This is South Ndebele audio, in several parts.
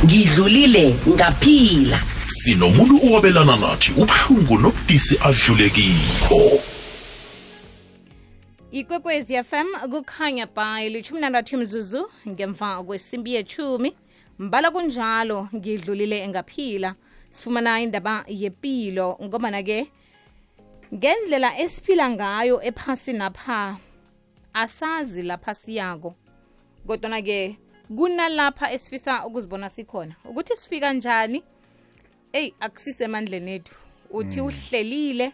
ngidlulile ngaphila. Sinomuntu owabelana nathi ubuhlungu nobudisi adlulekiko. Ikwekwezi FM kukhanya by 16 mzuzu ngemva kwesimbi ye10 mbala kunjalo ngidlulile ngaphila. Sifumana indaba yepilo ngomana ke ngendlela esiphila ngayo ephasi napha asazi lapha siyako. Kodwa ke kunalapha esifisa ukuzibona sikhona ukuthi sifika kanjani. Akusise emandleni ethu uthi uhlelile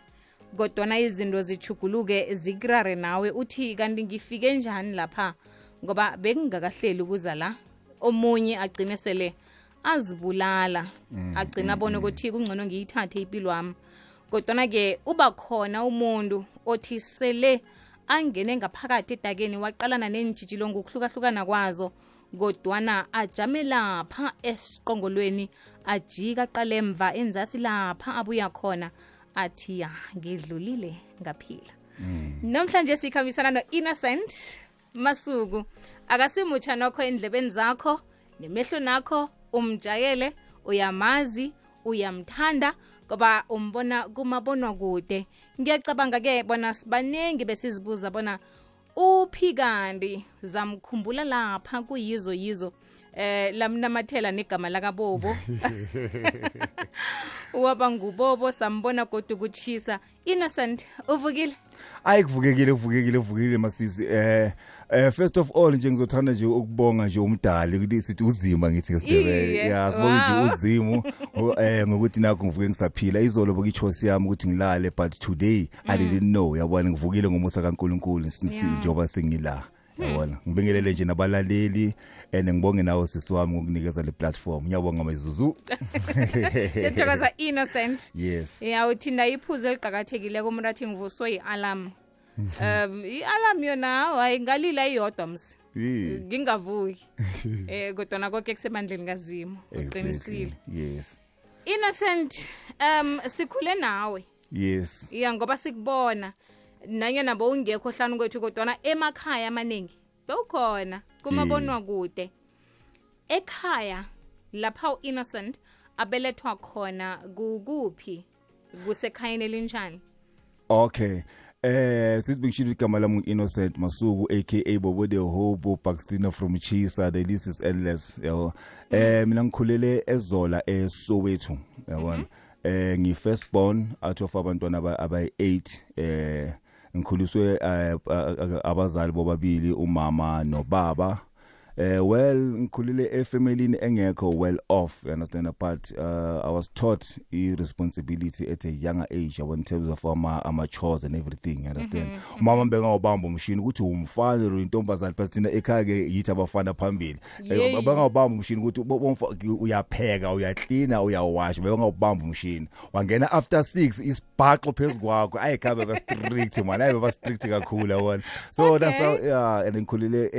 kodwa izinto zichuguluke zikrare nawe uthi kanti ngifike njani lapha ngoba bekungakahleli ukuza la. Omunye agcine sele azibulala agcina abone ukuthi kungcono ngiyithathe impilo yami. Kodwa ke uba khona umuntu othi sele angene ngaphakathi edakeni waqalana nenjijilo ngokuhlukahlukana kwazo kodwana ajame lapha esiqongolweni ajika qale emva enzasi lapha abuya khona athi ya ngidlulile ngaphila. Namhlanje sikhamisana no-Innocent Masuku. Akasimutsha nokho endlebeni zakho nemehlo nakho umjayele uyamazi uyamthanda ngoba umbona kumabonwa kude. Ngiyacabanga ke bona sibanengi besizibuza bona uphi kanti zamkhumbula lapha kuyizo lamnamathela negama lakaBobo. Waba nguBobo sambona kodwa ukuchisa. Innocent uvukile? Kuvukekile masisi. First of all nje ngizothanda nje ukubonga nje umdali ukuthi sithi uzima ngithi ngeSindebele. Sibonga nje uzimu ngokuthi nakho ngivuke ngisaphila. Izolo bokuyichosi yami ukuthi ngilale but today I didn't know. Yabona ngivukile ngomusa kaNkulunkulu njengoba sengila. Yabona ngibingelele nje nabalaleli ngibonge nawe sisi wami ngokunikeza le platform. Ngiyabonga mayizuzu. Ngiyathokoza Innocent. Yes. Uthinda iphuzo eliqhakathekile kumrathi ngivuswe i-alarm. I-alarm yona hayi ngalila iyodwa msi. Ngingavuki. Kodwa konke kusemandleni kaZimo uqinisile. Yes. Innocent sikhule nawe. Yes. Ngoba sikubona nanyana bowungekho hlanu kwethu kodwa emakhaya amaningi bewukhona kumabonwa kude. Ekhaya lapha uInnocent abelethwa khona kuphi kusekhayeni elinjani? Okay. Sisibingishilo igama lami uInnocent Masuku aka Bobo the Hobo Paxtina from Chisa. The list is endless. Yabo. Mina ngikhulele eZola eSoweto. Yabona. Ngi first born out of abantwana abayi8. Ngikhuliswe abazali bobabili umama nobaba. Well ngikhulile efamilini engekho well off, you understand, but I was taught responsibility at a younger age in terms of my chores and everything, you understand. Mama benga ubamba umshini ukuthi umfana intombazana phakathina ekhaya ke yithi abafana phambili. Benga ubamba umshini ukuthi uyapheka uyaklina uyawasha benga ubamba umshini wangena after 6 isibhaxo phezukwayo ayikhabe ba strict man ayiba strict kakhulu yabona. So that's how and ngikhulile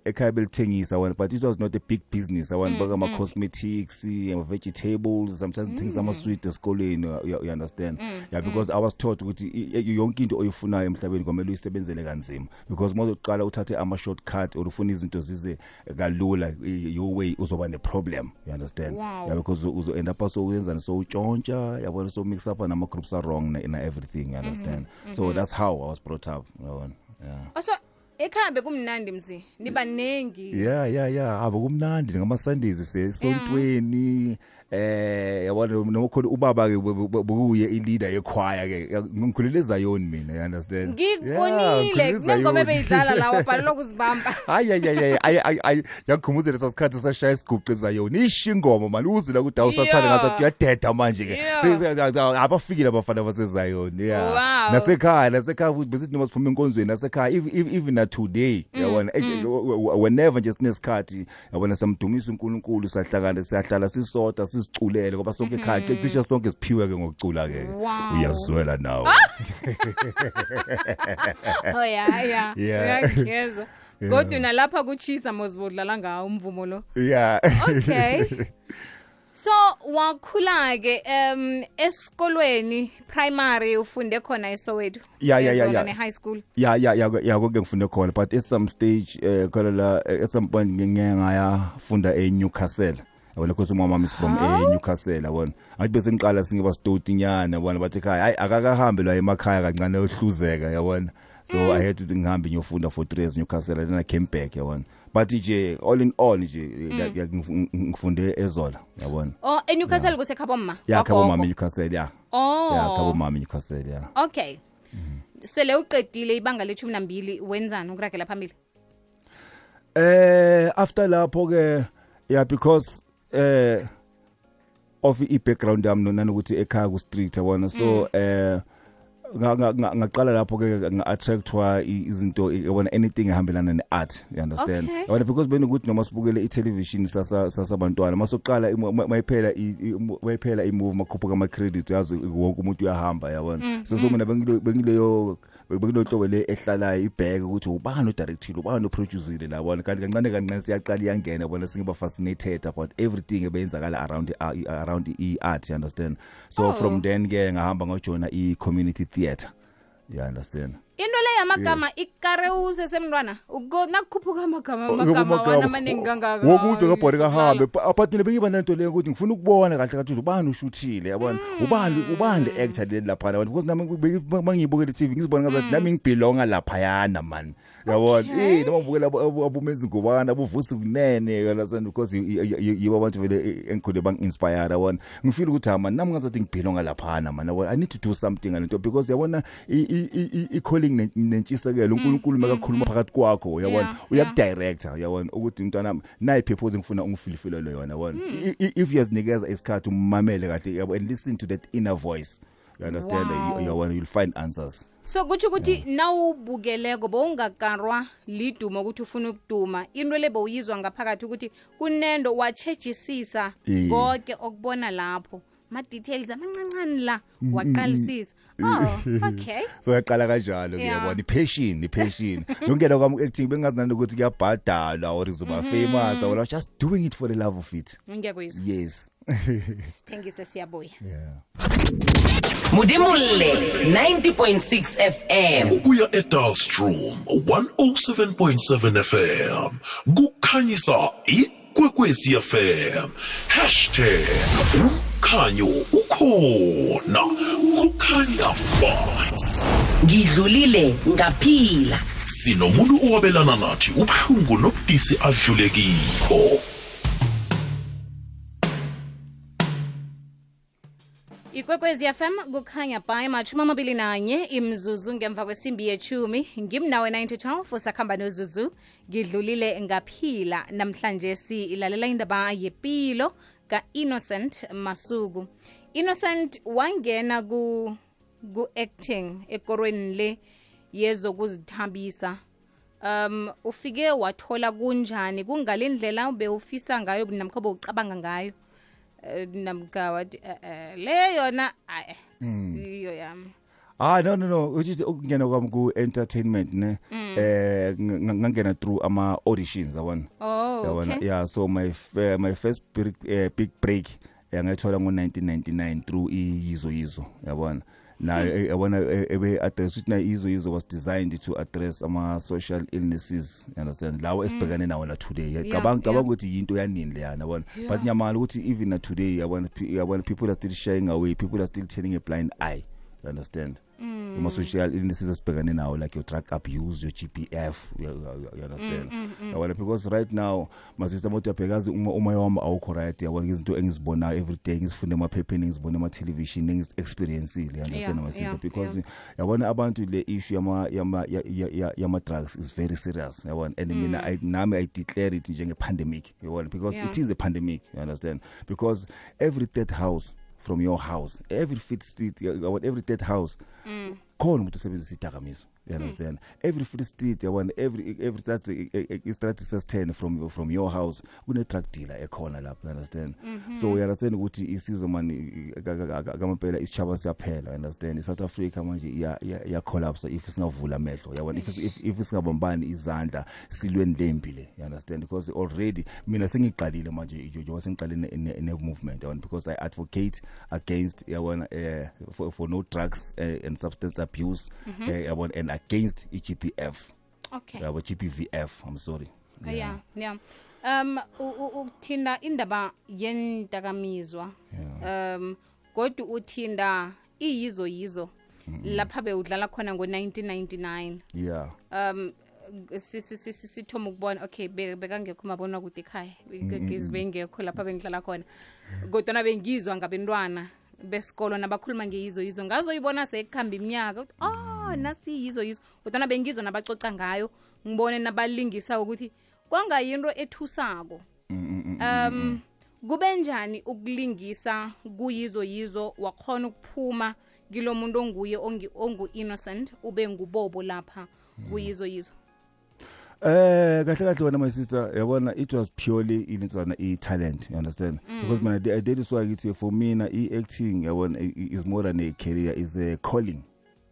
ekhaya thengisa one, but it was not a big business. I want burger, my cosmetics, vegetables, sometimes things I'm sweet esikoleni, you understand? Yeah, because I was taught ukuthi yonke into oyifunayo emhlabeni kwamele uyisebenzele kanzima, because uma uqala uthathe ama shortcut or ufuna izinto zize kalula your way uzoba ne problem, you understand? Wow. Yeah, because uzo end up so uyenza so utshontsha yabona so mix up nama groups are wrong in everything, you understand? So that's how I was brought up. Yeah. Also ekhambe kumnandi mzi nibanengi. Yeah abakumnandi ngama Sundays sesontweni yabona noma khona ubaba ke buye ileader yekhwaya ke ngikhulele eZayoni mina, you understand? Ngikubonile kunengoma beyidlala lawo bhalelwa ukuzibamba. Hayi yakhumuzela sasikhathi sashaya isiguqe eZayoni ishingoma manje uzila ukuthi awusathanda ngathi uyadeda manje ke abafikile abafana baseZayoni. Nasekhaya futhi besithi noma siphuma enkonzweni nasekhaya even today yabona whenever nje sinesikhathi yabona samdumisa uNkulunkulu siyahlala sisodwa siziculele ngoba sonke ekhaya cishe sonke siphiwe ke ngokucula ke uyazwela nawe. Uyangeza kodwa nalapha kuchisa mozibodlala ngawo umvumo lo. Okay. So wakhula ke esikolweni primary ufunde khona eSoweto. Yeah. High school. Yeah konke ngifunde khona, but at some stage at some point ngiyafunda eNewcastle. yabona because umama is from Newcastle yabona ngathi bese ngiqala singiba stotinyana yabona bathi ekhaya hayi akakahambe la emakhaya kancane ohluzeka yabona so I had to ngihambe ngiyofunda for 3 years Newcastle then I came back yabona but nje all in all nje ngifunde eZola yabona eNewcastle kusekhabo mama ya khabo mama Newcastle ya khabo mama Newcastle ya okay sele uqedile ibanga le-12 wenzani ukuragela phambili after lapho ke yeah because of i-background yami nanokuthi ekhaya ku street yabona so ngaqala lapho ke nga-attractwa izinto yabona anything ehambelana ne-art you understand yabona because benokuthi noma sibukele i-television sasabantwana masoqala mayiphela i-movie makhuphuka ama-credits yazi wonke umuntu uyahamba yabona so mina bengileyo hlobo le ehlalayo ibheke ukuthi ubani odirectile ubani oproducile labona kanti kancane siyaqala iyangena yabona singiba fascinated about everything ebeyenzakala around i-art you understand so from then ke ngahamba ngajoina i-community theatre you understand into le yamagama ikarewuse semntwana nakukhuphuka amagama wana maningi kangaka wokuthi ngabhori kahambe but mina bengiba nento le ukuthi ngifuna ukubona kahle kathi ubani ushuthile yabona ubani le actor le lapha yabona because nami mangibukela TV ngizibona ngathi nami ngibelonga lapha yana man yabona noma ngibukela abumenzi ngubana abuvusi kunene yabona because yibo abantu vele engikhule bang inspire yabona ngifeel ukuthi nami ngazathi ngibelonga lapha man yabona I need to do something ngalento because yabona i nentshisekelo uNkulunkulu makakhuluma phakathi kwakho yabona uyakudirector yabona ukuthi umntwana nayi purpose ngifuna ungifilifile yona yabona if yazinikeza isikhathi umamele kahle yabona and listen to that inner voice you understand yabona you'll find answers so kuthi ukuthi nawubukeleko bowungakarwa liduma ukuthi ufuna ukuduma into lebe uyizwa ngaphakathi ukuthi kunendo wachejisisa konke okubona lapho ma details amancane la waqalisisa okay so yaqala kanjalo ngiyabona passion ngongena kwami acting bengazi ukuthi kuyabhadala or izoba famous I was just doing it for the love of it ngiyakuzwa yes thengise siyabuya Mudimulle 90.6 FM ukuya eDalstrom 107.7 FM kukhanyisa ikwekwezi FM #ukhanyo ukhona kukhanya ba ngidlulile ngaphila sinomuntu owabelana nathi ubhlungu nobudisi adlulekiko Ikwekwezi FM kukhanya by 21 imzuzu ngemva kwesimbi ye10 ngimnawe 9-12 usakhamba nozuzu ngidlulile ngaphila namhlanje silalela indaba yepilo ka Innocent Masuku. Innocent wangena ku acting ekorweni le yezokuzithambisa ufike wathola kunjani kungalendlela ubewufisa ngayo namkhobo ucabanga ngayo namkawathi le yona siyo yami no uthi ukungena kwami ku entertainment ne ngangena through ama auditions yabona okay yeah so my first big break ngayithola ngo1999 through iyizo yabona na yabona ebe address ukuthi na izo was designed to address ama social illnesses you understand lawo esibhekane nawo la today cabanga ukuthi into yanini le yana yabona but nyamala ukuthi even na today yabona people are still shying away, people are still turning a blind eye, you understand? Uma social illnesses esibhekane nawo like your drug abuse, your GPF, you understand? Because right now my sister moto yabhekazi uma wami awukho right yabona izinto engizibonayo every day ngizifunda emaphepheni ngizibona ama television ngizi-experience you understand my sister because yabona abantu le issue yama drugs is very serious yabona and mina nami I declare it njenge pandemic yabona because it is a pandemic, you understand? Because every third house from your house, every fifth street, every third house, khona umuntu usebenzisa idakamizwa, you understand? Every fifth street, every stratus 10 from your house, kune drug dealer ekhona lapho, you understand? So you understand ukuthi isizwe mani kamaphela isichaba siyaphela, you understand? South Africa manje ya collapse if singavula amehlo, yabona, if singabambani izandla silweni lempile, you understand? Because already mina sengiqalile manje njengoba sengiqalile ne movement, yabona, because I advocate against yabona for no drugs and substance abuse and against GPF. Okay. GPVF, I'm sorry. Yeah. Uthinda indaba yendakamizwa kodwa uthinda iyizo lapha bewudlala khona ngo-1999 yeah sithoma ukubona okay bekangekho mabona kude ekhaya bengekho lapha bengidlala khona kodwa bengizwa ngabantwana besikolo nabakhuluma ngeyizo ngazoyibona sekukhamba iminyaka nasi yizo kodwa bengizwa nabacoca ngayo ngibone nabalingisa ukuthi kwangayinto ethusako kube njani ukulingisa kuyizo wakhona ukuphuma kilo muntu onguye ongu-innocent ube ngubobo lapha kuyizo kahle wena my sister yabona it was purely initswana i-talent, you understand? Because mina that is why ngithi for mina i-acting yabona is more than a career, is a calling,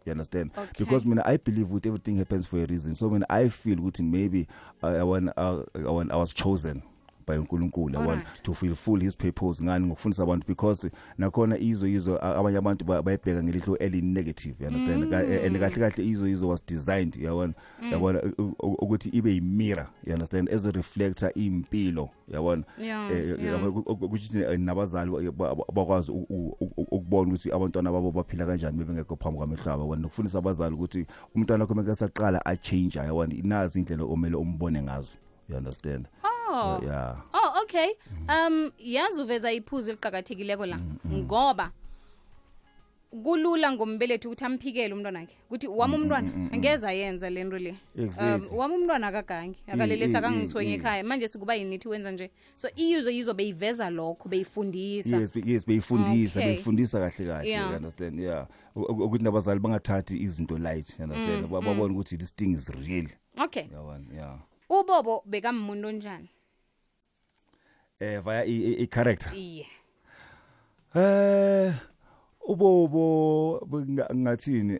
you understand? Okay. Because mina I believe with everything happens for a reason. So when I feel ukuthi maybe I was chosen by uNkulunkulu to fulfill his purpose ngani ngokufundisa abantu, because nakhona izo abanye abantu bayibheka ngelihlo eli negative, you understand? And kahle izo was designed yabona ukuthi ibe yimirror, you understand, as a reflector impilo yabona ukuthi nabazali bakwazi ukubona ukuthi abantwana babo baphila kanjani bebengekho phambi kwamehlaba yabona, nokufundisa abazali ukuthi umntwana wakhe makasaqala a change yabona inazi indlela omele umbone ngazo, you understand? Yeah. Okay. Yazi uveza iphuzu eliqhakathekileko la ngoba kulula ngombelethi ukuthi amphikele umntwana wakhe ukuthi wami umntwana angeza yenza lento le. Wami umntwana akagangi akalelesa kangisonye ekhaya manje sikuba yinithi wenza nje. So iyizo beyiveza lokho beyifundisa. Yes beyifundisa kahle, you understand? Yeah. Ukuthi nabazali bangathathi izinto light, you understand? Babona ukuthi this thing is real. Okay. Yeah. Ubobo bekamuntu onjani? Via a character. Yeah. Ubobo ngathini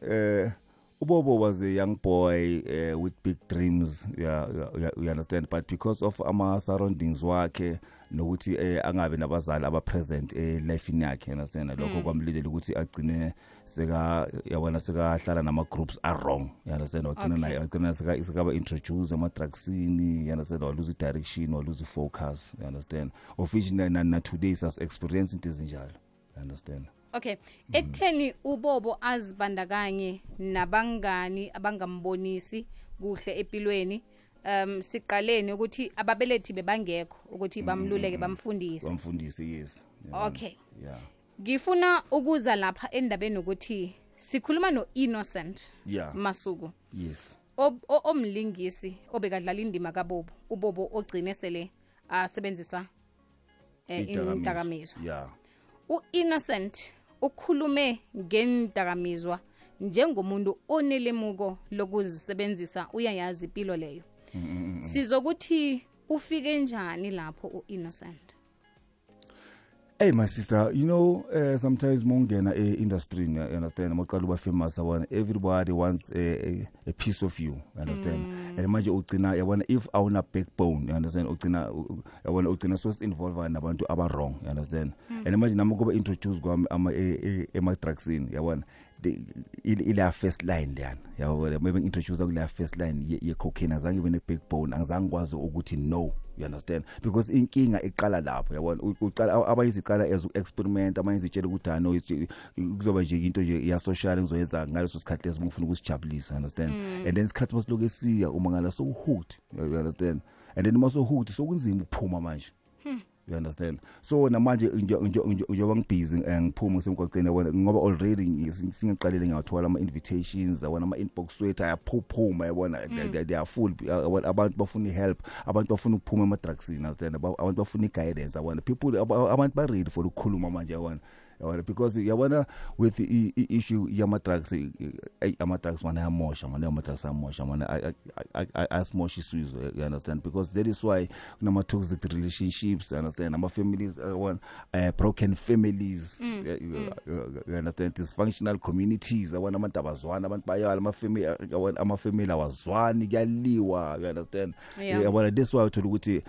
Ubobo was a young boy with big dreams, you understand, but because of ama surroundings wakhe nokuthi angabe nabazali aba present life yakhe, you understand, lokho kwamlilela ukuthi agcine yabona sekahlala nama groups are wrong, you understand, agcina sekaba introduce ama drugsini, you understand, or lose direction or lose focus, you understand, of which na today sas experience into ezinjalo, you understand. Okay, ekutheni ubobo azibandakanye nabangani abangambonisi kuhle empilweni, siqaleni ukuthi ababelethi bebangekho ukuthi bamluleke bamfundise. Yes. Okay. Yeah. Ngifuna ukuza lapha endabeni ukuthi sikhuluma no-Innocent Masuku. Yes. Omlingisi obekadlala indima kaBobo, uBobo ogcine sele asebenzisa indakamizwa. Yeah. U-Innocent ukhulume ngendakamizwa njengomuntu onelemuko lokuzisebenzisa, uyayazi impilo leyo. Sizokuthi ufike njani lapho u-Innocent? Hey my sister, you know, sometimes mongena industry, you understand, maqala uba famous abona, everybody wants a piece of you, you understand? And manje ugcina yabona if awuna backbone, you understand, ugcina so involved nabantu aba wrong, you understand? And manje nami kuba introduce kwami ama drugs in, yabona, ile first line leyana, yabona, maybe introduce kule first line ye cocaine, azange bene backbone, angizange kwazi ukuthi no, you understand, because inkinga iqala lapho, yabona, uqala abayiziqala as experiment, abayizitshela ukuthi no kuzoba nje into nje ya social ngizoyenza ngaleso sikhathi leso ngifuna ukusijabulisa, understand? And then isikhathi masiloke siya uma ngala so hooked, you understand, and then maso hooked so kunzima ukuphuma manje, you understand? So namanje njengoba ngibusy ngiphuma ngisemgwaqeni yabona ngoba already singiqalile ngiyathola ama invitations, yabona ama inbox wethu ayaphuphuma, yabona they are full, abantu bafuna help, abantu bafuna ukuphuma ama drugs, understand, abantu bafuna guidance, yabona people abantu ba ready for ukukhuluma manje, yabona, because yabona with the issue yama drugs, ama drugs mana yamosha, mana yama drugs yamosha, mana asmosha isizwe, you understand, because that is why kunama toxic relationships, you understand, ama families, broken families, you understand, dysfunctional communities, yabona abantu abazwana, abantu bayala ama family awazwani, kuyaliwa, you understand, yabona, that's why uthola ukuthi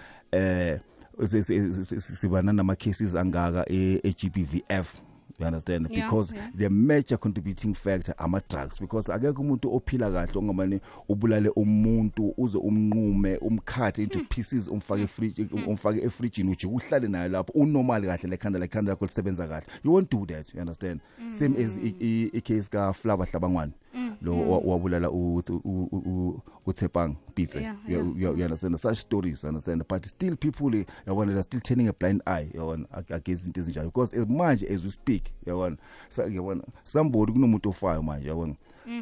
sibana nama cases angaka e-GBVF, you understand, Yeah, because yeah. the major contributing factor ama-drugs, because akekho umuntu ophila kahle ongamane ubulale umuntu uze umnqume umkhathe into pieces umfake efrijini uje uhlale naye lapho unormal kahle lekhanda lakho lisebenza kahle. You won't do that, you understand. Same as i-case ka-Flava Hlabangwane lo wabulala uThepang Pitse. Yeah, You understand, such stories, you understand, but still people they're still turning a blind eye against into ezinjalo, because as much as we speak, somebody kunomuntu ofayo manje,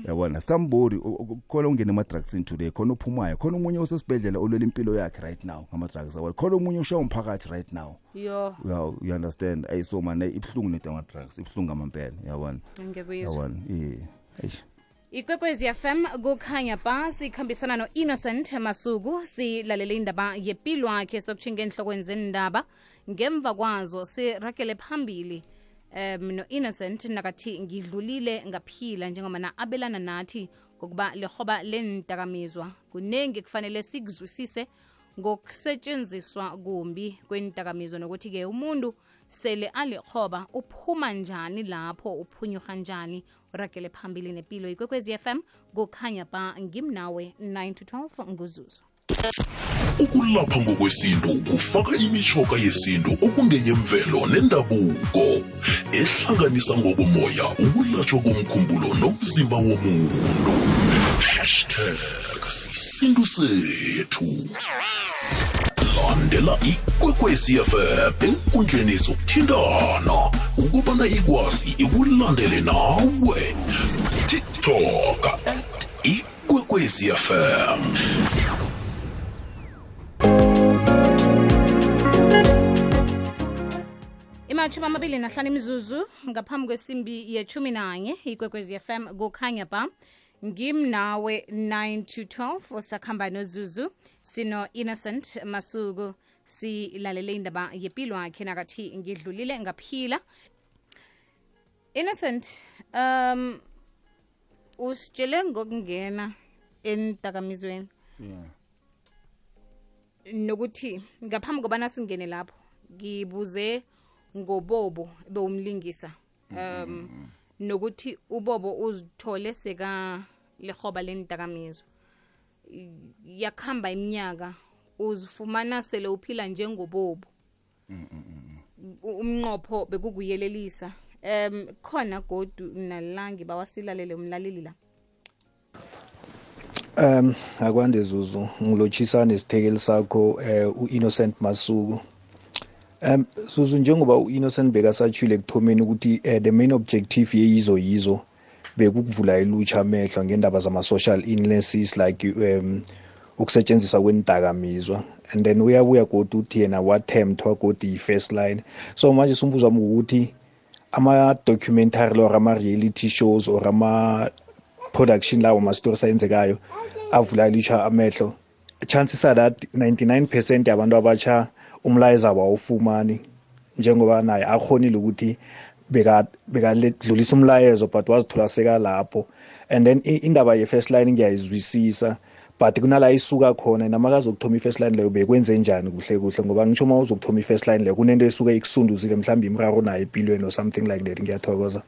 yabona, somebody khona ungena ama-drugs in today, khona uphumayo, khona umunye osesibhedlela olwela impilo yakhe right now ngama-drugs, khona umunye ushaya umphakathi right now. Yo. You understand, so man ibhlungu nento ama-drugs, ibhlungu ngamampela, yabona. Ngiyakuyizwa. Eish. Ikwekwezi FM kukhanya ba sikhambisana no-Innocent Masuku, silalele indaba yempilo yakhe sokutshinga enhlokweni zendaba. Ngemva kwazo sirakele phambili no-Innocent nakathi ngidlulile ngaphila njengoba na abelana nathi ngokuba lehoba lentakamizwa kunengi kufanele sikuzwisise ngokusetshenziswa kumbi kwentakamizwa, nokuthi ke umuntu sele alihoba uphuma njani lapho, uphunyuka njani. Urakele phambili nepilo. Ikwekwezi FM kukhanya ba ngimnawe 9 to 12 nguzuzu. Ukulapha ngokwesintu kufaka imishoka yesintu okungeyemvelo nendabuko ehlanganisa ngokomoya ukulatshwa komkhumbulo nomzimba womuntu. #sisintu sethu. Landela Ikwekwezi FM enkundleni zokuthintana ukubana ikwazi ikulandele nawe. TikTok @Ikwekwezi FM. Imachuma 25 imizuzu ngaphambi kwesimbi ye-11 Ikwekwezi FM kukhanya ba ngimnawe 9 to 12 sakhamba nozuzu. Sino Innocent Masuku, silalele indaba yempilo yakhe nakathi ngidlulile ngaphila. Innocent, usitshele ngokungena entakamizweni. Yeah. Nokuthi ngaphambi kobana singene lapho ngibuze ngoBobo bewumlingisa. Nokuthi uBobo uzithole seka lehoba lentakamizwa. Yakhamba iminyaka uzifumana sele uphila njengoBobo. Umnqopho bekukuyelelisa. Khona godu nalangi bawasilalele umlaleli la. Akwande Zuzu ngilotshisa nesithekeli sakho uInnocent Masuku. Zuzu njengoba uInnocent bekasatshile ekuthomeni ukuthi the main objective yizo bekukuvula ilutsha amehlo ngendaba zama-social illnesses like ukusetshenziswa kwendakamizwa, and then uyabuya kodwa uthi yena wathemthwa kodwa i-first line. So manje umbuzo wami ukuthi ama-documentary or ama-reality shows or ama-production lawo ma-stories ayenzekayo avula ilutsha amehlo, chances are that 99% yabantu abatsha umlayezo abawufumani njengoba naye akhonile ukuthi bekaledlulisa umlayezo but wazithola seka lapho. And then indaba ye-first line ngiyayizwisisa, but kunala isuka khona namakazi ukuthoma i-first line leyo bekwenze njani kuhle ngoba ngisho uma uzokuthoma i-first line leyo kunento esuka ikusunduzile mhlawumbe imraro nayo empilweni or something like that. Ngiyathokoza.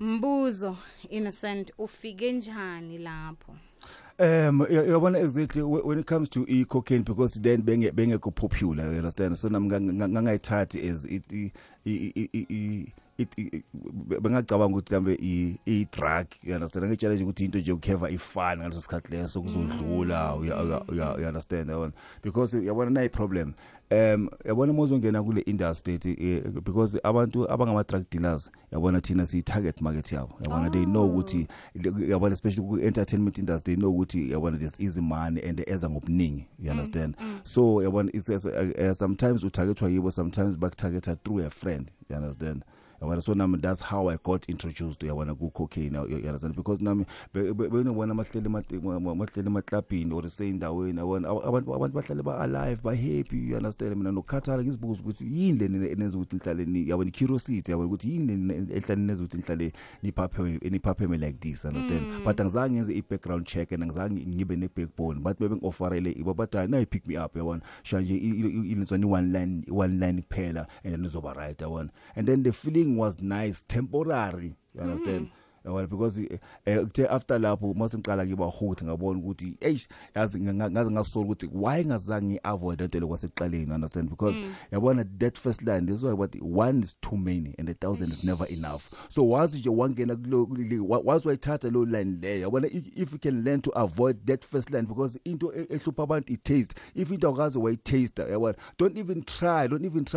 Mbuzo Innocent, ufike njani lapho? Yabona exactly when it comes to cocaine, because then bengekho popular, you understand, so ngangayithathi as bengacabanga ukuthi mhlambe i-drug, you understand, ngitshela nje ukuthi into nje ukukheva ifana ngaleso sikhathi leso kuzodlula, you understand, yabona, because yabona nayi problem. Yabona mozongena kule industry because abantu abangama-drug dealers yabona thina siyi-target market yabo, yabona they know ukuthi yabona especially ku-entertainment industry they know ukuthi yabona there's easy money and eza ngobuningi, you understand. So yabona it's sometimes utargetwa yibo, sometimes bakutargeta through a friend, you understand. So that's how I got introduced to cocaine, you understand, because nami benobona mahleli emaklabhini or seyindaweni abantu bahlale ba-alive ba-happy, you understand. Mina nokukhathala ngizibuza ukuthi yini leni enenza ukuthi nihlale yabona curiosity, yabona ukuthi yini leni ehlale nenza ukuthi nihlale niphapheme like this, understand. But angizange ngenze i-background check and angizange ngibe ne-backbone, but bebengiofarele ibo but now pick me up, yabona shanje ilenzwa one line kuphela and then izoba right, yabona. And then the feeling everything was nice, temporary. You understand? Well, because after lapho masiqala ngiba hooked ngabona ukuthi yazi ngasola ukuthi why ngazange avoid into lokwasekuqaleni, understand? Because yabona that first line is what one is too many and 1,000 is never enough. So once you wangena once wayithatha lo line there, yabona if you can learn to avoid that first line, because into ehlupha abantu it taste, if into akazi way taste, yabona don't even try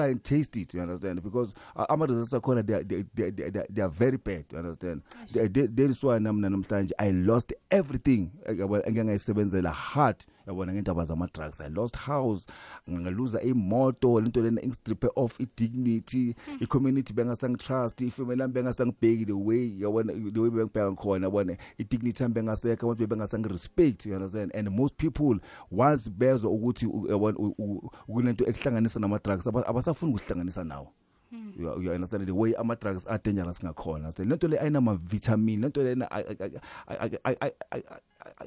and taste it, you understand? Because ama results akhona they are very bad, you understand? There is why namhlanje I lost everything engangayisebenzela hard yabona ngendaba zama drugs. I lost house, ngaluza imoto, lento lena ingistrip off dignity, i community bengasang trust, ifamily yami bengasangibheki the way yabona bengibheka khona yabona i dignity yami bengasekho, abantu bengasang respect, you understand? And most people once bezwe ukuthi yabona kunento ekuhlanganisa nama drugs abasafuni ukuhlanganisa nawo. You understand the way ama drugs are dangerous ngakhona. So lento le ayinama vitamin, lento le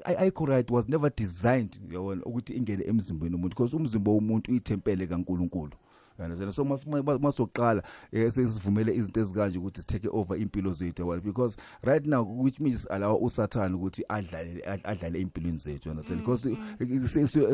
I correct was never designed yabona ukuthi ingene emzimbeni womuntu, because umzimba womuntu uyithempele kaNkulunkulu. You understand? So masoqala sesivumele izinto ezikanje ukuthi take over impilo zethu yabona, because right now which means allow uSatan ukuthi adlale impilweni zethu, you understand? Because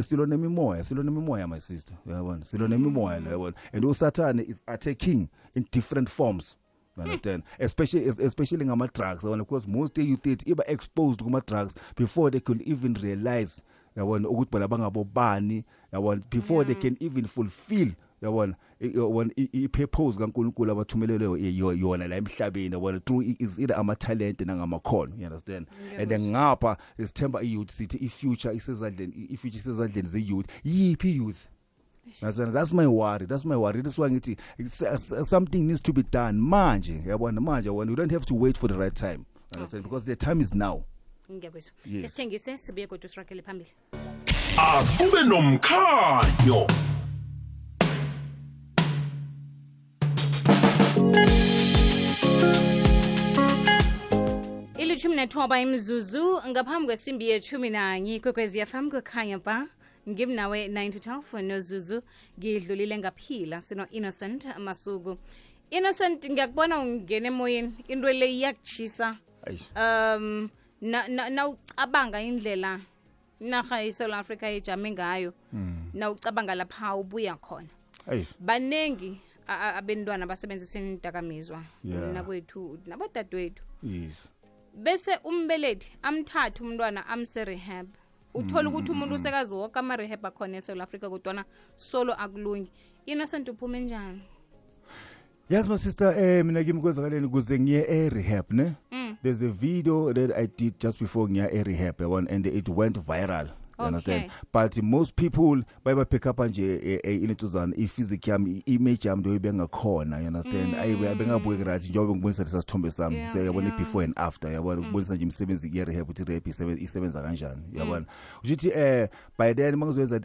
silona imimoya my sister, yabona, silona imimoya yabona, and uSatan is attacking in different forms. You understand? Especially ngama drugs, because most youth iba exposed kuma drugs before they could even realize yabona ukuthi bona bangabobani, yabona, before they can even fulfill yabona i-purpose kaNkulunkulu abathumeleleyo yona la emhlabeni, yabona, through is either ama talent nangamakhono, you understand? And then ngapha isithemba i-youth sithi i-future isezandleni ze-youth. Yiphi youth? That's my worry. That's why ngithi something needs to be done manje, yabona, we don't have to wait for the right time, understand? Because the time is now. Ngiyabuzwa. Yes. Sithengise sibuye kodwa sirakele phambili. Akube nomkhanyo. Ilithumi nethoba imzuzu ngaphambi kwesimbi yethumi nanye kwekwezi FM kukhanya ba ngimnawe 9-12 nozuzu ngidlulile ngaphila sino Innocent Masuku. Innocent, ngiyakubona ungene emoyeni, into le iyakuchisa. Na ucabanga indlela inarha eSouth Africa ejame ngayo, na ucabanga lapha ubuya khona. Banengi abentwana basebenzisa indakamizwa nakwethu nabadadewethu. Yes. Bese umbelethi amthatha umntwana amse rehab. Uthola ukuthi umuntu usekazi wonke ama rehab akhona eSouth Africa kodwa solo akulungi. Innocent uphume njani? Yes, my sister, mina ngimkwenzakaleni kuze ngiye rehab ne. There's a video that I did just before ngiya rehab and it went viral. You understand? But most people baye pick up nje inetuzana physics yami, image yami ndoyibe ngakhona, you understand? Ayibengabuke right njengoba ngibonisa lesithombe sami, yabona before and after, yabona ukubonisa nje imisebenzi ye rehab ukuthi rehab isebenza kanjani, yabona. Uthi by then mangizowenza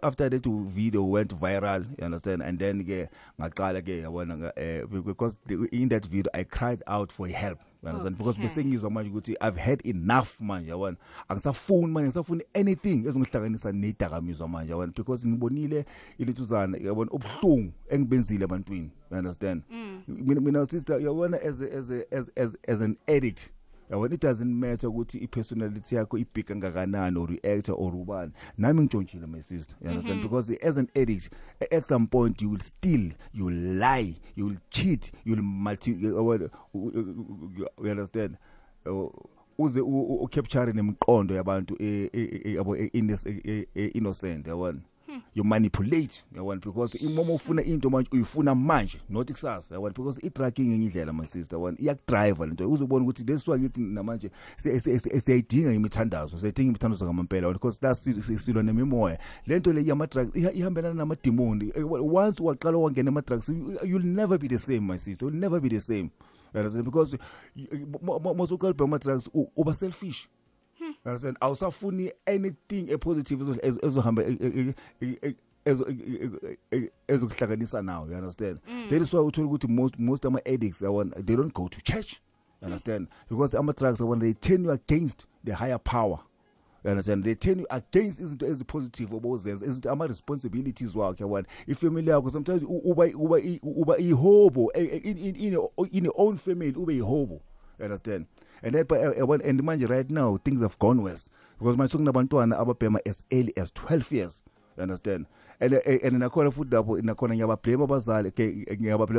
after that video went viral, you understand? And then ke ngaqala ke yabona because in that video I cried out for help, you understand? Because bese ngizwa manje ukuthi I've had enough manje, yabona. Angisafuni anything ezongihlanganisa nedakamizwa manje, yabona, because ngibonile ilithuzana, yabona, ubuhlungu engibenzile abantwini, you understand? Mina sister, yabona, as an addict, yabona, it doesn't matter ukuthi i-personality yakho ibhika ngakanani or reactor or ubani. Nami ngitshontshile my sister, you understand? Because as an addict at some point you will steal, you will lie, you will cheat, you will you understand? Uze ucapture nemqondo yabantu innocent, yabona. You manipulate, yabona, because imomo ufuna into manje uyifuna manje not kusasa, yabona, because i-tracking ngendlela my sister, yabona, iyakudrive lento uzobona ukuthi leswa ngithi namanje siyayidinga imithandazo, ngamampela, because that's silwa nemimoya. Lento le yama drugs ihambelana nama demon. Once waqala wangena ama drugs, you'll never be the same my sister, you'll never be the same. Because most of the drugs over selfish. Understand? Awusafuni anything a positive ezohamba ezokuhlanganisa now, you understand? That is why we told you most of my addicts they don't go to church. You understand? Because ama drugs they turn you against the higher power. You understand? They turn you against izinto ezipositive obozenza, izinto ama-responsibilities wakhe yabona. Ifamily yakho sometimes uba ihobo in your own family ube ihobo. You understand? And then and manje right now things have gone worse because manje sokunabantwana ababhema as early as 12 years. You understand? And nakhona futhi lapho nakhona ngiyabablame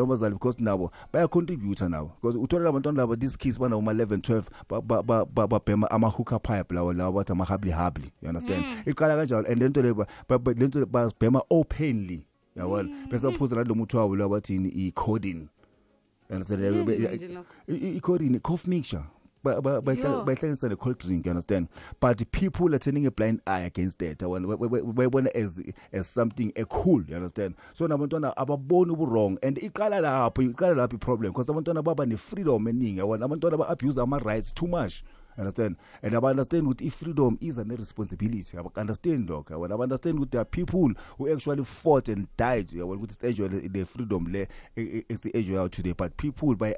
abazali because nabo baya contributor nabo because uthola abantwana laba these kids bana uma 11 12 babhema ama hookah pipe lawo bathi ama habli. You understand? Iqala kanjalo and lento lento bazibhema openly yabona bese baphuza lo muntu wabo labathi i codeine. You understand? I codeine cough mixture. By things a cold drink, you understand? But the people are turning a blind eye against that. We want as something cool, you understand? So nabantwana ababona wrong and iqala lapho problem because abantwana baba ne freedom eningi. Abantwana ba abuse ama rights too much. Understand? And I understand with if freedom is a responsibility. I understand, dog. I understand with there are people who actually fought and died. With this age, the freedom is the age out today. But people by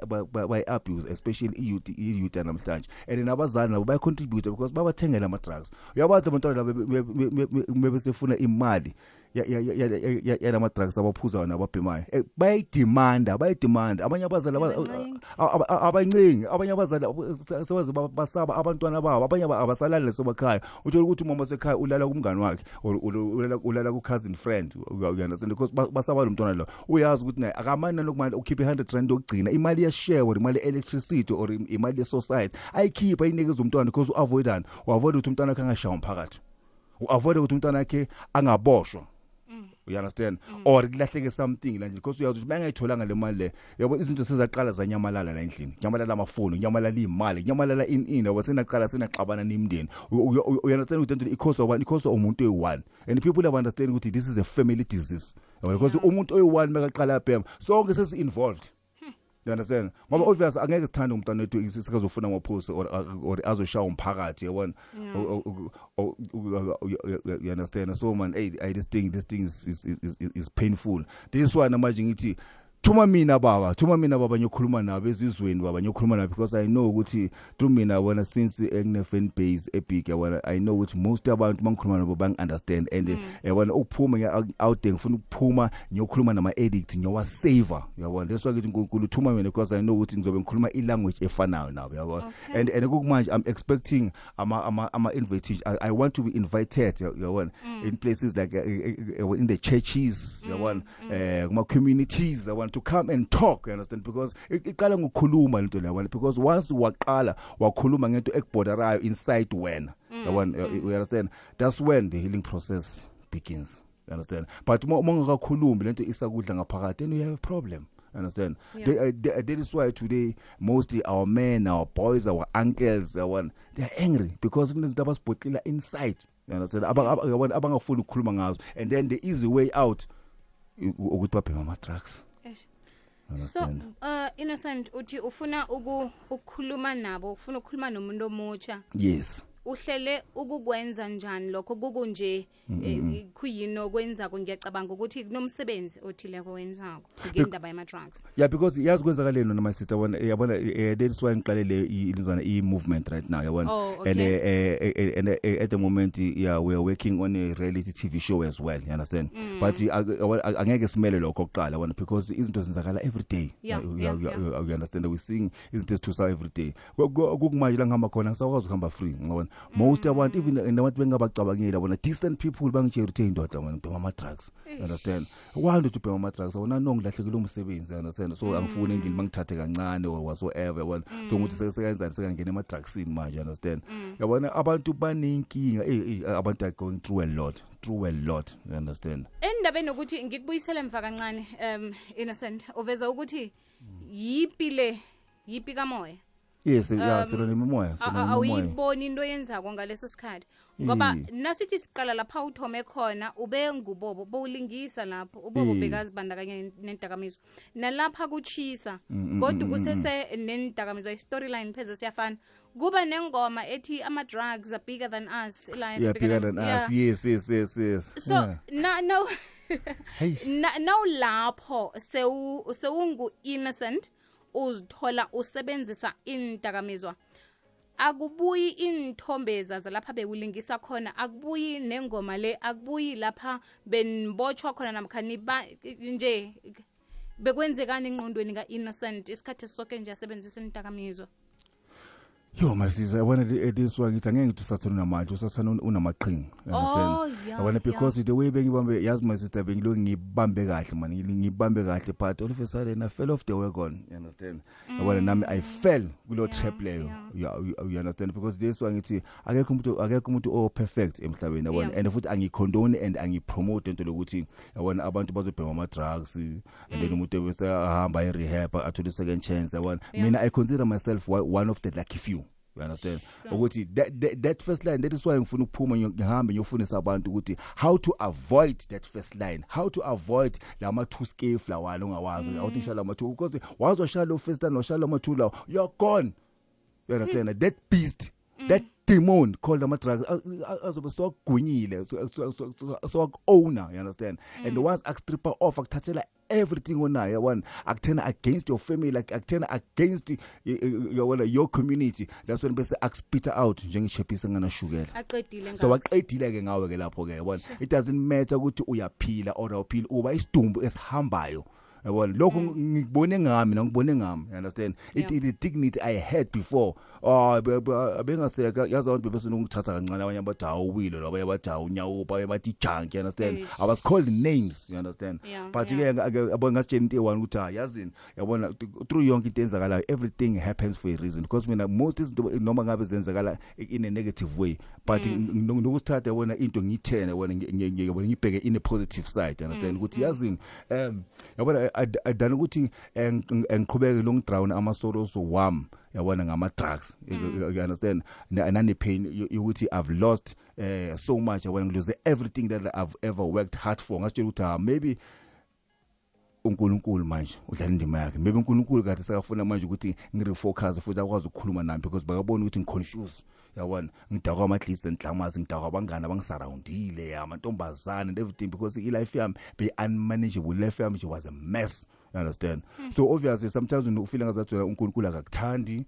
abuse, especially youth and amhlanje. And in abazana by contributor because baba tenga na drugs. Yabathi abantwana maybe sefuna imali. Ya nama drugs abaphuza wona ababhemayo bayidemand abanye abazali abanye abazali sebaze basaba abantwana babo abanye abasalala lesobakhaya uthola ukuthi umama sekhaya ulala kumngani wakhe ulala ku cousin friend uyana because basaba lo mntwana lo uyazi ukuthi naye akamani nokumanje ukhiphe 100 rand yokugcina imali ya share or imali electricity or imali ye society ayikhipha inikeza umntwana because uavoid ukuthi umntwana wakhe angashaya umphakathi uavoid ukuthi umntwana wakhe angaboshwa. You understand? Or ilahleke something la nje because uyazi ukuthi bangayitholanga le mali le yabo izinto sezaqala zanyamalala la endlini nyamalala amafoni nyamalala imali nyamalala in wasenaqala senaxabana nemndeni. You understand ukuthi because umuntu oyi1 and people have understand ukuthi this is a family disease because umuntu oyi1 makaqala bhema sonke sesi involved. You understand? Ngoba obviously angeke sithande umntwana wethu sikazofuna ngophuzo or azoshaya umphakathi yabona. You understand? So man, hey this thing is painful. This one manje ngithi Thuma mina baba nyokhuluma nabo ezizweni baba nyokhuluma nabo because I know ukuthi through mina wona since engine fan base epic yabona I know ukuthi most abantu mangikhuluma nabo bang understand and yabona ukuphuma out there ngifuna ukuphuma nyokhuluma nama addict nyowa saver yabona that's why ngithi uNkulunkulu thuma mina because I know ukuthi ngizobe ngikhuluma ilanguage efanayo nabo yabona and kumanje I'm expecting ama invitation I want to be invited yabona in places like in the churches yabona kuma communities yabona to come and talk, you understand? Because iqala ngokukhuluma into leyo because once waqala wakhuluma ngento ekuborderayo inside wena you understand, that's when the healing process begins, you understand? But mongakakhulumi lento isakudla ngaphakathi then you have a problem. Understand? Yeah. That is why today mostly our men, our boys, our uncles, they are angry because kunezinto abasibhotlela inside. You understand? Abangafuni ukukhuluma ngazo and then the easy way out ukuthi babhema ama drugs. So Innocent uthi ufuna ukukhuluma nabo ufuna ukukhuluma nomuntu omutsha. Yes. Uhlele ukukwenza njani lokho kukunje kuyino kwenza ngiyacabanga ukuthi kunomsebenzi othile kwenzako ngendaba yama drugs. Yeah, because yazi kwenzakaleni noma sister yabona that's why ngiqalele ilizwana movement right now yabona. And at the moment we are working on a reality TV show as well, you understand? But angeke simele lokho oqala yabona because izinto zenzakala every day. You understand? We seeing izinto to every day. Kukumanje la ngihamba khona ngisakwazi ukuhamba free ngabona. Most abantu even nabantu bengabacabangela bona decent people bangitshela ukuthi indoda wena ubhema ama drugs, understand? Wanda to ubhema ama drugs wona nongilahlekile umsebenzi, understand? So angifuni endlini mangithathe kancane or whatsoever yabona. So ukuthi sekenzani sekangena ama drugsini manje, understand? Yabona abantu banenkinga abantu are going through a lot, you understand? Endabeni ukuthi ngikubuyisela emva kancane Innocent uveza ukuthi yipi kamoya. Yes, silo nemoya, awuyiboni into yenzako ngaleso sikhathi ngoba nasithi siqala lapha uthome khona ube ngubobo bowulingisa lapho ubobo bekazibandakanye nendakamizwa nalapha kuchisa kodwa kusese nendakamizwa storyline pheze siyafana kuba nengoma ethi ama drugs are bigger than us bigger than us. Yes. So now lapho sewungu innocent uzithola usebenzisa indakamizwa akubuyi inthombeza zalapha bekulingisa khona, akubuyi nengoma le, akubuyi lapha benibotshwa khona namkhani nje bekwenzekani engqondweni ka-Innocent isikhathi sonke nje asebenzisa indakamizwa. Yo masisa yabona this one ngithi angeke usathana namanje usathana unamaqhinga, understand? Yabona because the way bengibambe yazi my sister bengilo ngibambe kahle man, ngibambe kahle but all of a sudden I fell off the wagon, you understand? Yabona nami I fell kulo trap leyo, you understand? Because this one ngithi akekho umuntu o perfect emhlabeni yabona, and futhi angicondone and angipromote into lokuthi yabona abantu bazobhema ama drugs and then umuntu bese ahamba e-rehab athole second chance yabona. Mina I consider myself one of the lucky few. You understand? Ukuthi that first line, that is why ngifuna ukuphuma ngihambe ngiyofundisa abantu ukuthi how to avoid that first line, how to avoid lama two scale lawana ongawazi awuthi shala ama two, because once washala first line washala ama two law you're gone. You understand? That beast, that demon called ama drugs azobe so gwinyile so owner, you understand? And once akstripper off akuthathela everything onayo one akuthena against your family, like akuthena against your community, that's when bese akspita out njengechephisa ngana shukela aqedile so waqedile ke ngawe ke lapho ke yabona. It doesn't matter ukuthi uyaphila or awuphili, uba isidumbu esihambayo yabona. Lokho ngibone ngami ngibone ngami, you understand? The dignity I had before bengaseka yazi abantu bese ngithatha kancane, abanye abathi awuwilo labanye abathi awunyawupa, abanye bathi junk, you understand? I was called names, you understand? But ke abona ngasitshela into eyi-one ukuthi yazini yabona through yonke into enzakalayo everything happens for a reason, because mina most izinto noma ngabe zenzakala in a negative way but nokusithatha yabona into ngiyithene yabona ngibheke in a positive side, you understand? Ukuthi yazini yabona adana ukuthi ngiqhubeke long drown amasoros wami yabona ngama drugs, you understand? Nane pain ukuthi I've lost so much, yabona ngilose everything that I've ever worked hard for. Ngasitshela ukuthi maybe uNkulunkulu manje udlala indima yakhe, maybe uNkulunkulu kade sakafuna manje ukuthi ngirefocus futhi akwazi ukukhuluma nami, because bakabona ukuthi ngiconfuse yabona, ngidakwa ama-clients enhlamazi, ngidakwa abangane abangisurroundile amantombazane and everything, because i-life yami be unmanageable, life yami was a mess, you understand? So obviously sometimes when ufeel ngazathi uNkulunkulu akakuthandi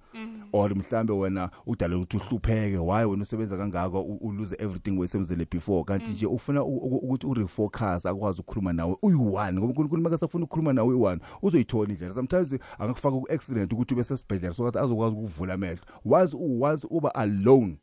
or mhlambe wena udala ukuthi uhlupheke, why wena usebenza kangaka lose everything wayesebenzele before, kanti nje ufuna ukuthi urefocus akwazi ukukhuluma nawe uyi-one, ngoba uNkulunkulu makasafuna ukukhuluma nawe uyi-one uzoyithola indlela. Sometimes angakufaka ku-accident ukuthi ube sesibhedlela so that azokwazi ukuvula amehlo. Once uba alone,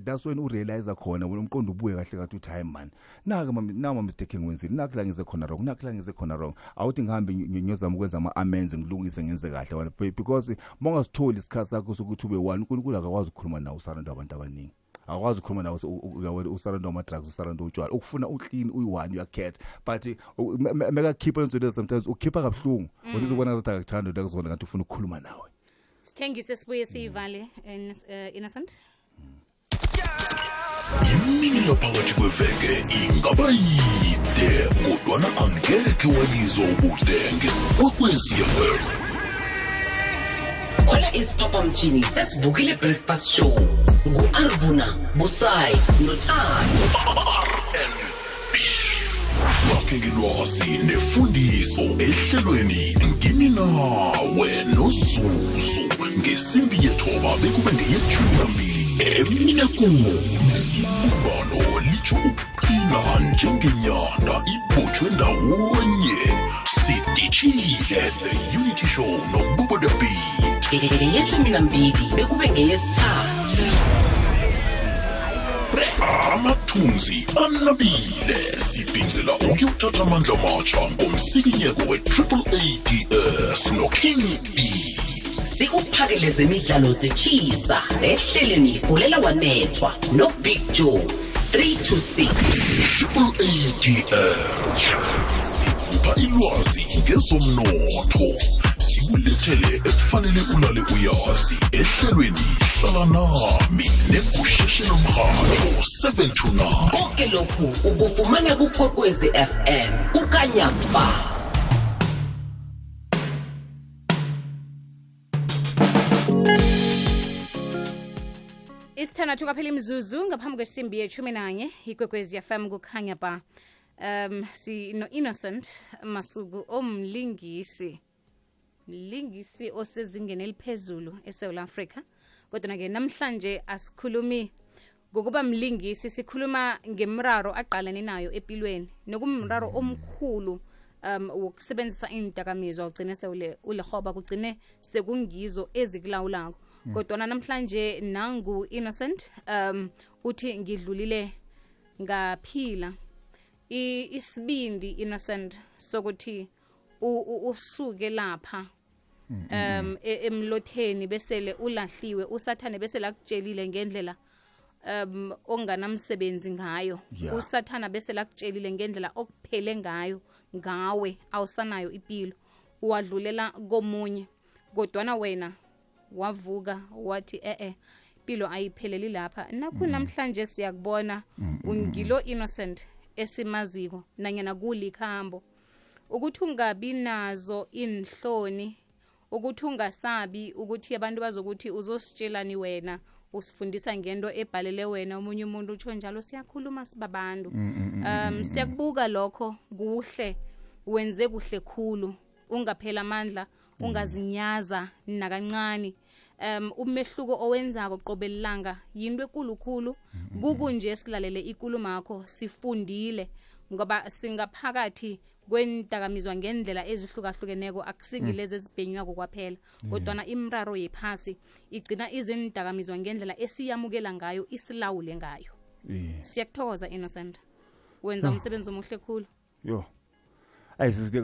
that's when urealize khona wena umqondo ubuye kahle kathi uthi hayi man, nama mistake ngwenzile, nakla ngize khona wrong, nakla ngize khona wrong, awuthi ngihambe ngiyozama ukwenza ama-amends ngilungise ngenze kahle wena, because mongasitholi isikhathi sakho sokuthi ube one, uNkulunkulu akakwazi ukukhuluma nawe usaranda abantu abaningi, akwazi ukukhuluma nawe usaranda ama-drugs, usaranda utshwala, ukufuna uclean uyi-one uyacat, but mekakhipha into lezo sometimes ukhipha kabuhlungu wena uzobona ngathi akakuthanda into akuzona ngathi ufuna ukukhuluma nawe. Sithengise sibuye siyivale Innocent. Imini yaphakathi kweveke ingaba yide kodwana angekhe walizwa ubudenge kwekwezi FM. Khona isiphaphamtshini sesivukile breakfast show ngu-Arvuna Busayi noThando. Bakhe ngilwazi nefundiso ehlelweni ngini nawe noZuzu ngesimbi yethoba bekube ngeyethumi emina kumo ibalo litsho ukuqina njengenyanda ibotshwe ndawonye sidishile the unity show nobubo the beat Yethumi nambili bekube ngeyesithathu. amathunzi anabile sibhincela ukuyothatha amandla amatsha ngomsikinyeko we-AAADS noKing E. Sikuphakele zemidlalo zitshisa ehleleni ifulela wanethwa noBig Joe 3 to 6. AAADS sikupha ilwazi ngezomnotho, sikulethele ekufanele ulale uyazi ehlelweni hlala nami negusheshelo mrhatho 7 to 9. Konke lokhu ukufumana kuKwekwezi FM kukanyamba. Isithandathu kaphela imizuzu ngaphambi kwesimbi ye-11 iKwekwezi FM kukhanya ba. Si no Innocent Masuku omlingisi osezingeni eliphezulu eSouth Africa kodwa ke namhlanje asikhulumi ngokuba mlingisi, sikhuluma ngemraro aqalene nayo empilweni nokumraro omkhulu wokusebenzisa indakamizwa ugcine ulehoba kugcine sekungizo ezikulawulako. Kodwa namhlanje nangu Innocent uthi ngidlulile ngaphila isibindi Innocent sokuthi usuke lapha emlotheni besele ulahliwe, usathane besele akutshelile ngendlela onganamsebenzi ngayo, usathana besele akutshelile ngendlela okuphele ngayo ngawe awusanayo impilo, uwadlulela komunye. Kodwa wena wavuka wathi impilo ayipheleli lapha. Nakho namhlanje siyakubona ungilo Innocent esimaziko nanyana kulikhambo, ukuthi ungabi nazo inhloni, ukuthi ungasabi ukuthi abantu bazokuthi uzositshelani wena, usifundisa ngento ebhalele wena. Omunye umuntu utsho njalo, siyakhuluma sibabantu. Siyakubuka lokho kuhle, wenze kuhle khulu, ungaphela amandla, ungazinyaza nakancane. Umehluko owenzako qobelelanga yinto ekulukhulu. Kukunje silalele ikulumo yakho, sifundile ngoba singaphakathi kwendakamizwa ngendlela ezihlukahlukeneko, akusingilezi ezibhenywako kwaphela, kodwa imraro yephasi igcina izindakamizwa ngendlela esiyamukela ngayo, isilawule ngayo. Siyakuthokoza Innocent, wenza umsebenzi omuhle khulu. Yazi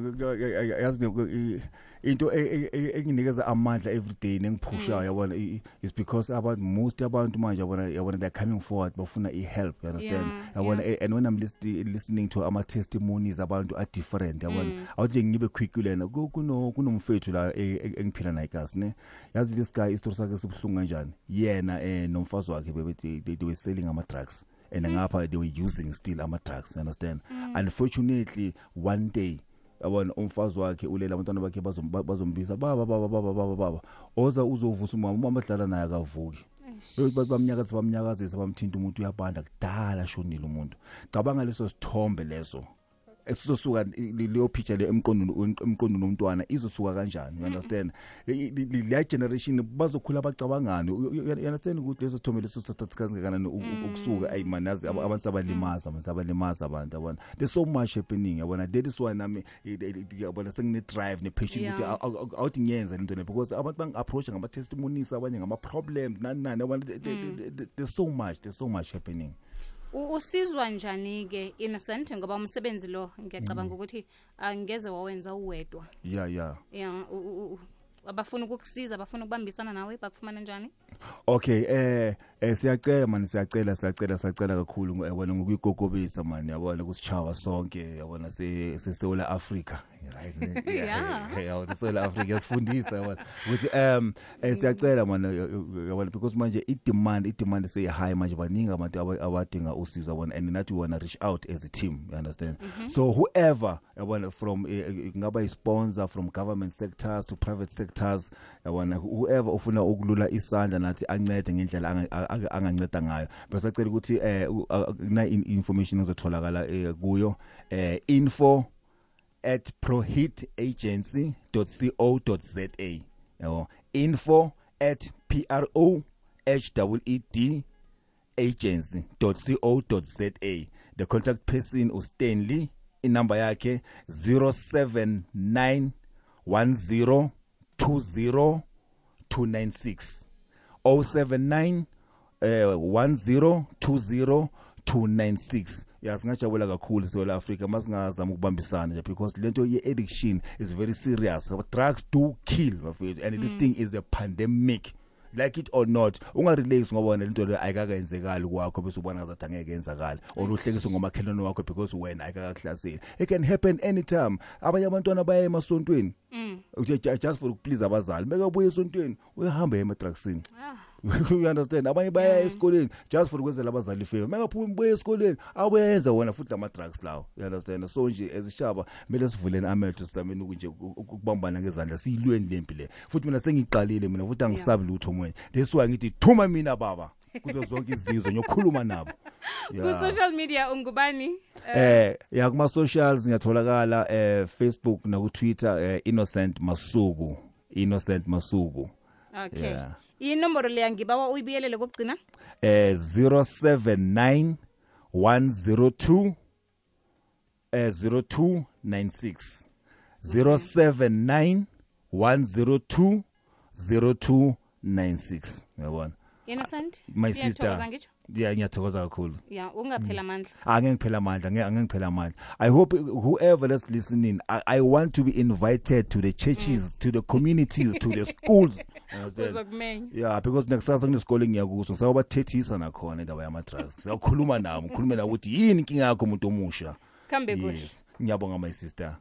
into enginikeza amandla everyday nengiphushayo yabona is because most abantu manje yabona they're coming forward bafuna help, you understand? Yabona and when I'm listening to ama testimonies abantu are different, yabona awuthi ngibe quick lena kunomfethu la engiphila naye kasi ne. Yazi this guy istory sakhe sibhlungu kanjani, yena nomfazi wakhe they were selling ama drugs and ngapha they were using still ama drugs, you understand? Unfortunately one day abona umfazi wakhe ulela abantwana bakhe bazombisa baba oza uzovusa umama adlala naye akavuki. Bamnyakazisa bamthinta umuntu uyabanda kudala shonile umuntu. Cabanga leso sithombe leso esizosuka leyo picture le emqondweni nomntwana izosuka kanjani, you understand? Le generation bazokhula abacabangani, you understand ukuthi leso sithombe leso statistics kangakanani ukusuka ayimanazi abantu abalimaza abantu abona. There's so much happening yabona. That is why nami yabona sengine drive ne passion ukuthi awuthi ngiyenza into le, because abantu bangi-approach ngama testimonies, abanye ngama problems nani yabona. There's so much happening. Usizwa njani ke Innocent ngoba umsebenzi lo ngiyacabanga ukuthi angeze wawenza uwedwa? Abafuna ukukusiza, abafuna ukubambisana nawe, bakufumana njani? Okay, siyacela man, siyacela kakhulu wena ngokuyigogobisa man, yabona kusichawa sonke, yabona sesewula Africa, right? Yeah, sesewula Africa sifundisa yabona ukuthi siyacela man, yabona, because manje i-demand say high manje, baningi abantu abadinga usizo yabona, and nathi we wanna reach out as a team, you understand? So whoever yabona, from ngaba i-sponsor, from government sectors to private sectors, yabona, whoever ufuna ukulula isandla nathi ancede ngendlela anganceda ngayo, bese acela ukuthi na information ezotholakala kuyo info@prohitagency.co.za, yabo, info@prohitagency.co.za. The contact person uStanley, inamba yakhe 0791020 079 1020 singajabula kakhulu seWela Africa masingazama ukubambisana nje, because lento ye-addiction is very serious. Drugs do kill, and this thing is a pandemic. Like it or not, ungarelax ngoba lento le ayikakenzekali kwakho bese ubona ngazathi angeke yenzakala, or uhlekiswa ngomakhelwane wakho because wena ayikakahlasela. It can happen anytime. Abanye abantwana baya emasontweni just for ukuplease abazali, beka buye esontweni uyahamba emadrugsini. You understand? Abanye baya esikoleni just for ukwenzela abazali favor, mengaphumi buye esikoleni awenza wona futhi ama drugs lawo, you understand? So nje ezishaba kumele sivuleni amehlo sizameni ukunje ukubambana ngezandla siyilweni lempi le, futhi mina sengiqalile mina futhi angisabi lutho manje. That's why ngithi thuma mina baba kuzo zonke izizwe ngiyokhuluma nabo. Ku social media ungubani? Kuma socials ngiyatholakala Facebook na ku Twitter Innocent Masuku. Okay. inomboro leya ngibawa uyibiyelele kokugcina 079 102 0296 079 102 0296 yabona yena Sandi my Siyathokoza sister ngitsho. ngiyathokoza kakhulu ungaphela amandla angengiphela amandla angengiphela amandla. I hope whoever that's listening, I want to be invited to the churches, to the communities, to the schools. uzokumenya Yeah, because nekusasa kunesikole ngiyakuso ngisawubathethisa nakhona indaba yama-drugs. Siyakhuluma nabo, ngikhulume nabo ukuthi yini inkinga yakho umuntu omusha. kambe kuhle Ngiyabonga my sister.